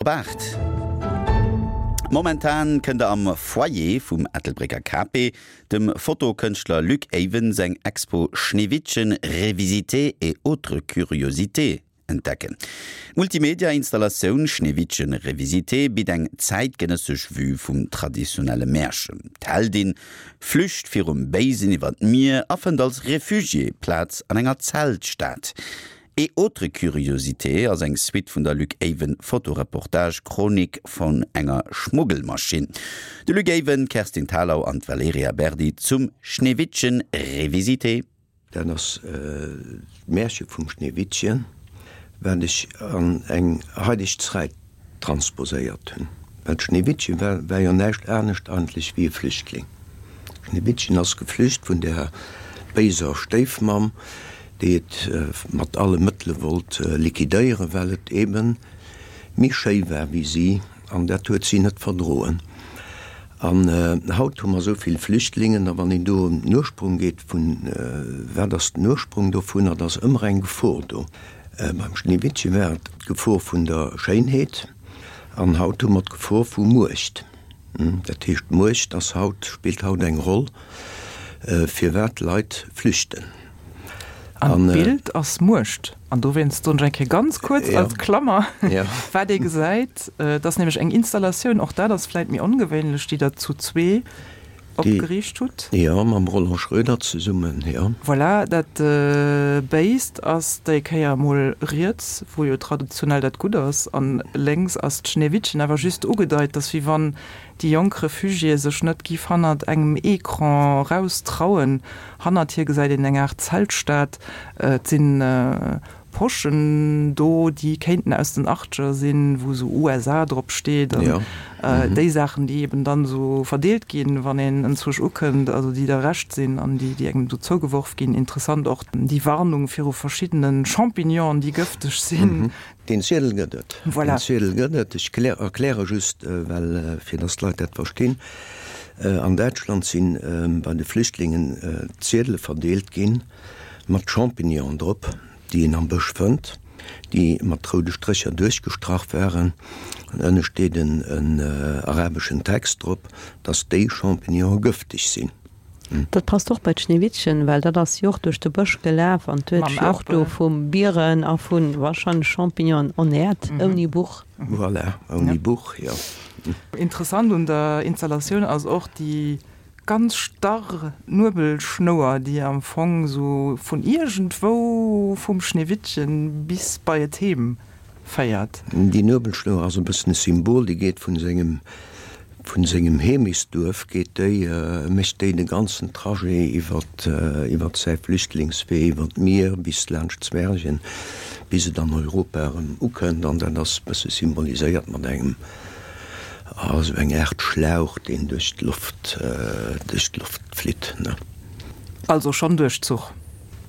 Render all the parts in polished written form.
Op 8. Momentan kënnt der am Foyer vum Ettelbrécker KP dem Fotokënschtler Luc Eyven seng Expo Schneewittchen revisité et autres curiosités entdecken. D'Multimedia-Installatioun Schneewittchen revisité bitt eng zäitgenëssesch Vue vum traditionelle Märchen. D'Heldin flücht virum Béisen iwwer d'Mier a fënnt als Refugié Plaz an enger Zeltstad. Et autres curiosités ass eng Suite vun der Luc Eyven Fotoreportage Chronik vun enger Schmuggelmaschinn. De Luc Eyven, d'Kerstin Thalau an d'Valerija Berdi zum Schneewittchen revisité. Dat ass d'Märche vum Schneewittchen, wat ech an eng haideg Zräit transposéiert hunn. Well d'Schneewittchen war war jo näischt anescht eigentlech wéi e Flüchtling. D'Schneewittchen ass geflücht vun der béiser Stéifmamm, déi et mat alle Mëttele wollt liquidéieren, well et eebe méi schéi war wéi si, an dat huet si net verdroen. An haut hu mer esou vill Flüchtlingen, a wann een do un den Ursprung geet vun, wat ass den Ursprung dovunner, da ass ëmmer eng Gefor do. Beim Schneewittche war et d'Gefor vun der Schéinheet, an haut hu mer d'Gefor vu Muecht. Dat heescht, d'Muecht ass haut, spillt haut eng Roll, firwat Leit flüchten. An d'Bild ass Muecht. An dowéinst soen ech eng Kéier ganz kuerz als Klammer, wat ee gesäit, et ass nämlech eng Installatioun, och dat ass vläit méi ongewéinlech, déi Der zu zwee opgeriicht hutt. Jo, mam Roland Schroeder zesummen, jo. Voilà, dat Béist ass déi Kéier emol riets, wou jo traditionell dat Gutt ass, an lénks ass d'Schneewittchen, awer just ugedeit, dass wéi wann déi jonk Refugiéë sech net giff hannert engem Ecran raustrauen. Hannert hir gesäit een eng Aart Zeltstad, et sinn Poschen do, déi kéinten aus den Achtger sinn, wou esou USA drop steet an déi Saachen, déi eben dann esou verdeelt ginn, wann een enzwousch ukënnt, also déi der Recht sinn an déi, déi engem do zougeworf ginn. Interessant och déi Warnung viru verschiddene Champignonen, déi gëfteg sinn. Deen Ziedel gëtt et. Voilà. Deen Ziedel gëtt et. Ech erkläre just, well, fir datt d'Leit dat verstinn, An Däitschland si bei de Flüchtlingen Ziedele verdeelt ginn mat Champignonen drop, déi een am Bësch fënnt, déi mat roude Strécher duerchgestrach waren. An ënne steet en arabeschen Text drop, datt déi Champignonen gëfteg sinn. Dat passt och bei d'Schneewittchen, well dat ass jo och duerch de Bësch gelaf an huet sech och do vu Bieren a vu warscheinlech Champignonen ernährt, ouni Buch. Voilà, ouni Buch, jo. Interessant un der Installatioun ass och déi ganz starr Nuebelschnouer, déi am Fong sou vun iergendwou vum Schneewittchen bis bei et heem féiert. Déi Nuebelschnouer ass e bëssen e Symbol, déi geet vun sengem Vun sengem Heemechtsduerf geet déi, mécht déi de ganzen Trajet iwwert iwwert säi Flüchtlingswee, iwwert d'Mier bis laanscht Zwergen, bis et an Europa erëm ukënnt. An dat ass e bësse symboliséiert mat engem, ah, sou eng Aart Schlauch, deen duerch d'Loft, duerch d'Loft flitt, ne. Also schonn Duerchzuch.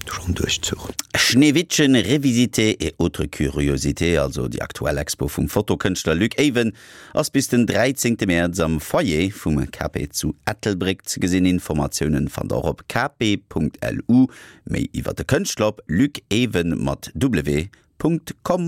Schonn Duerchzuch. Schneewittchen revisité et autres curiosités, also déi aktuell Expo vum Fotokënschtler Luc Eyven, Ass bis den 13 Mäerz am Foyer vum KP zu Ettelbréck ze gesinn. Informatiounen fannt der och op kp.lu. Méi iwwer de Kënschtler op lucewen mat w.com.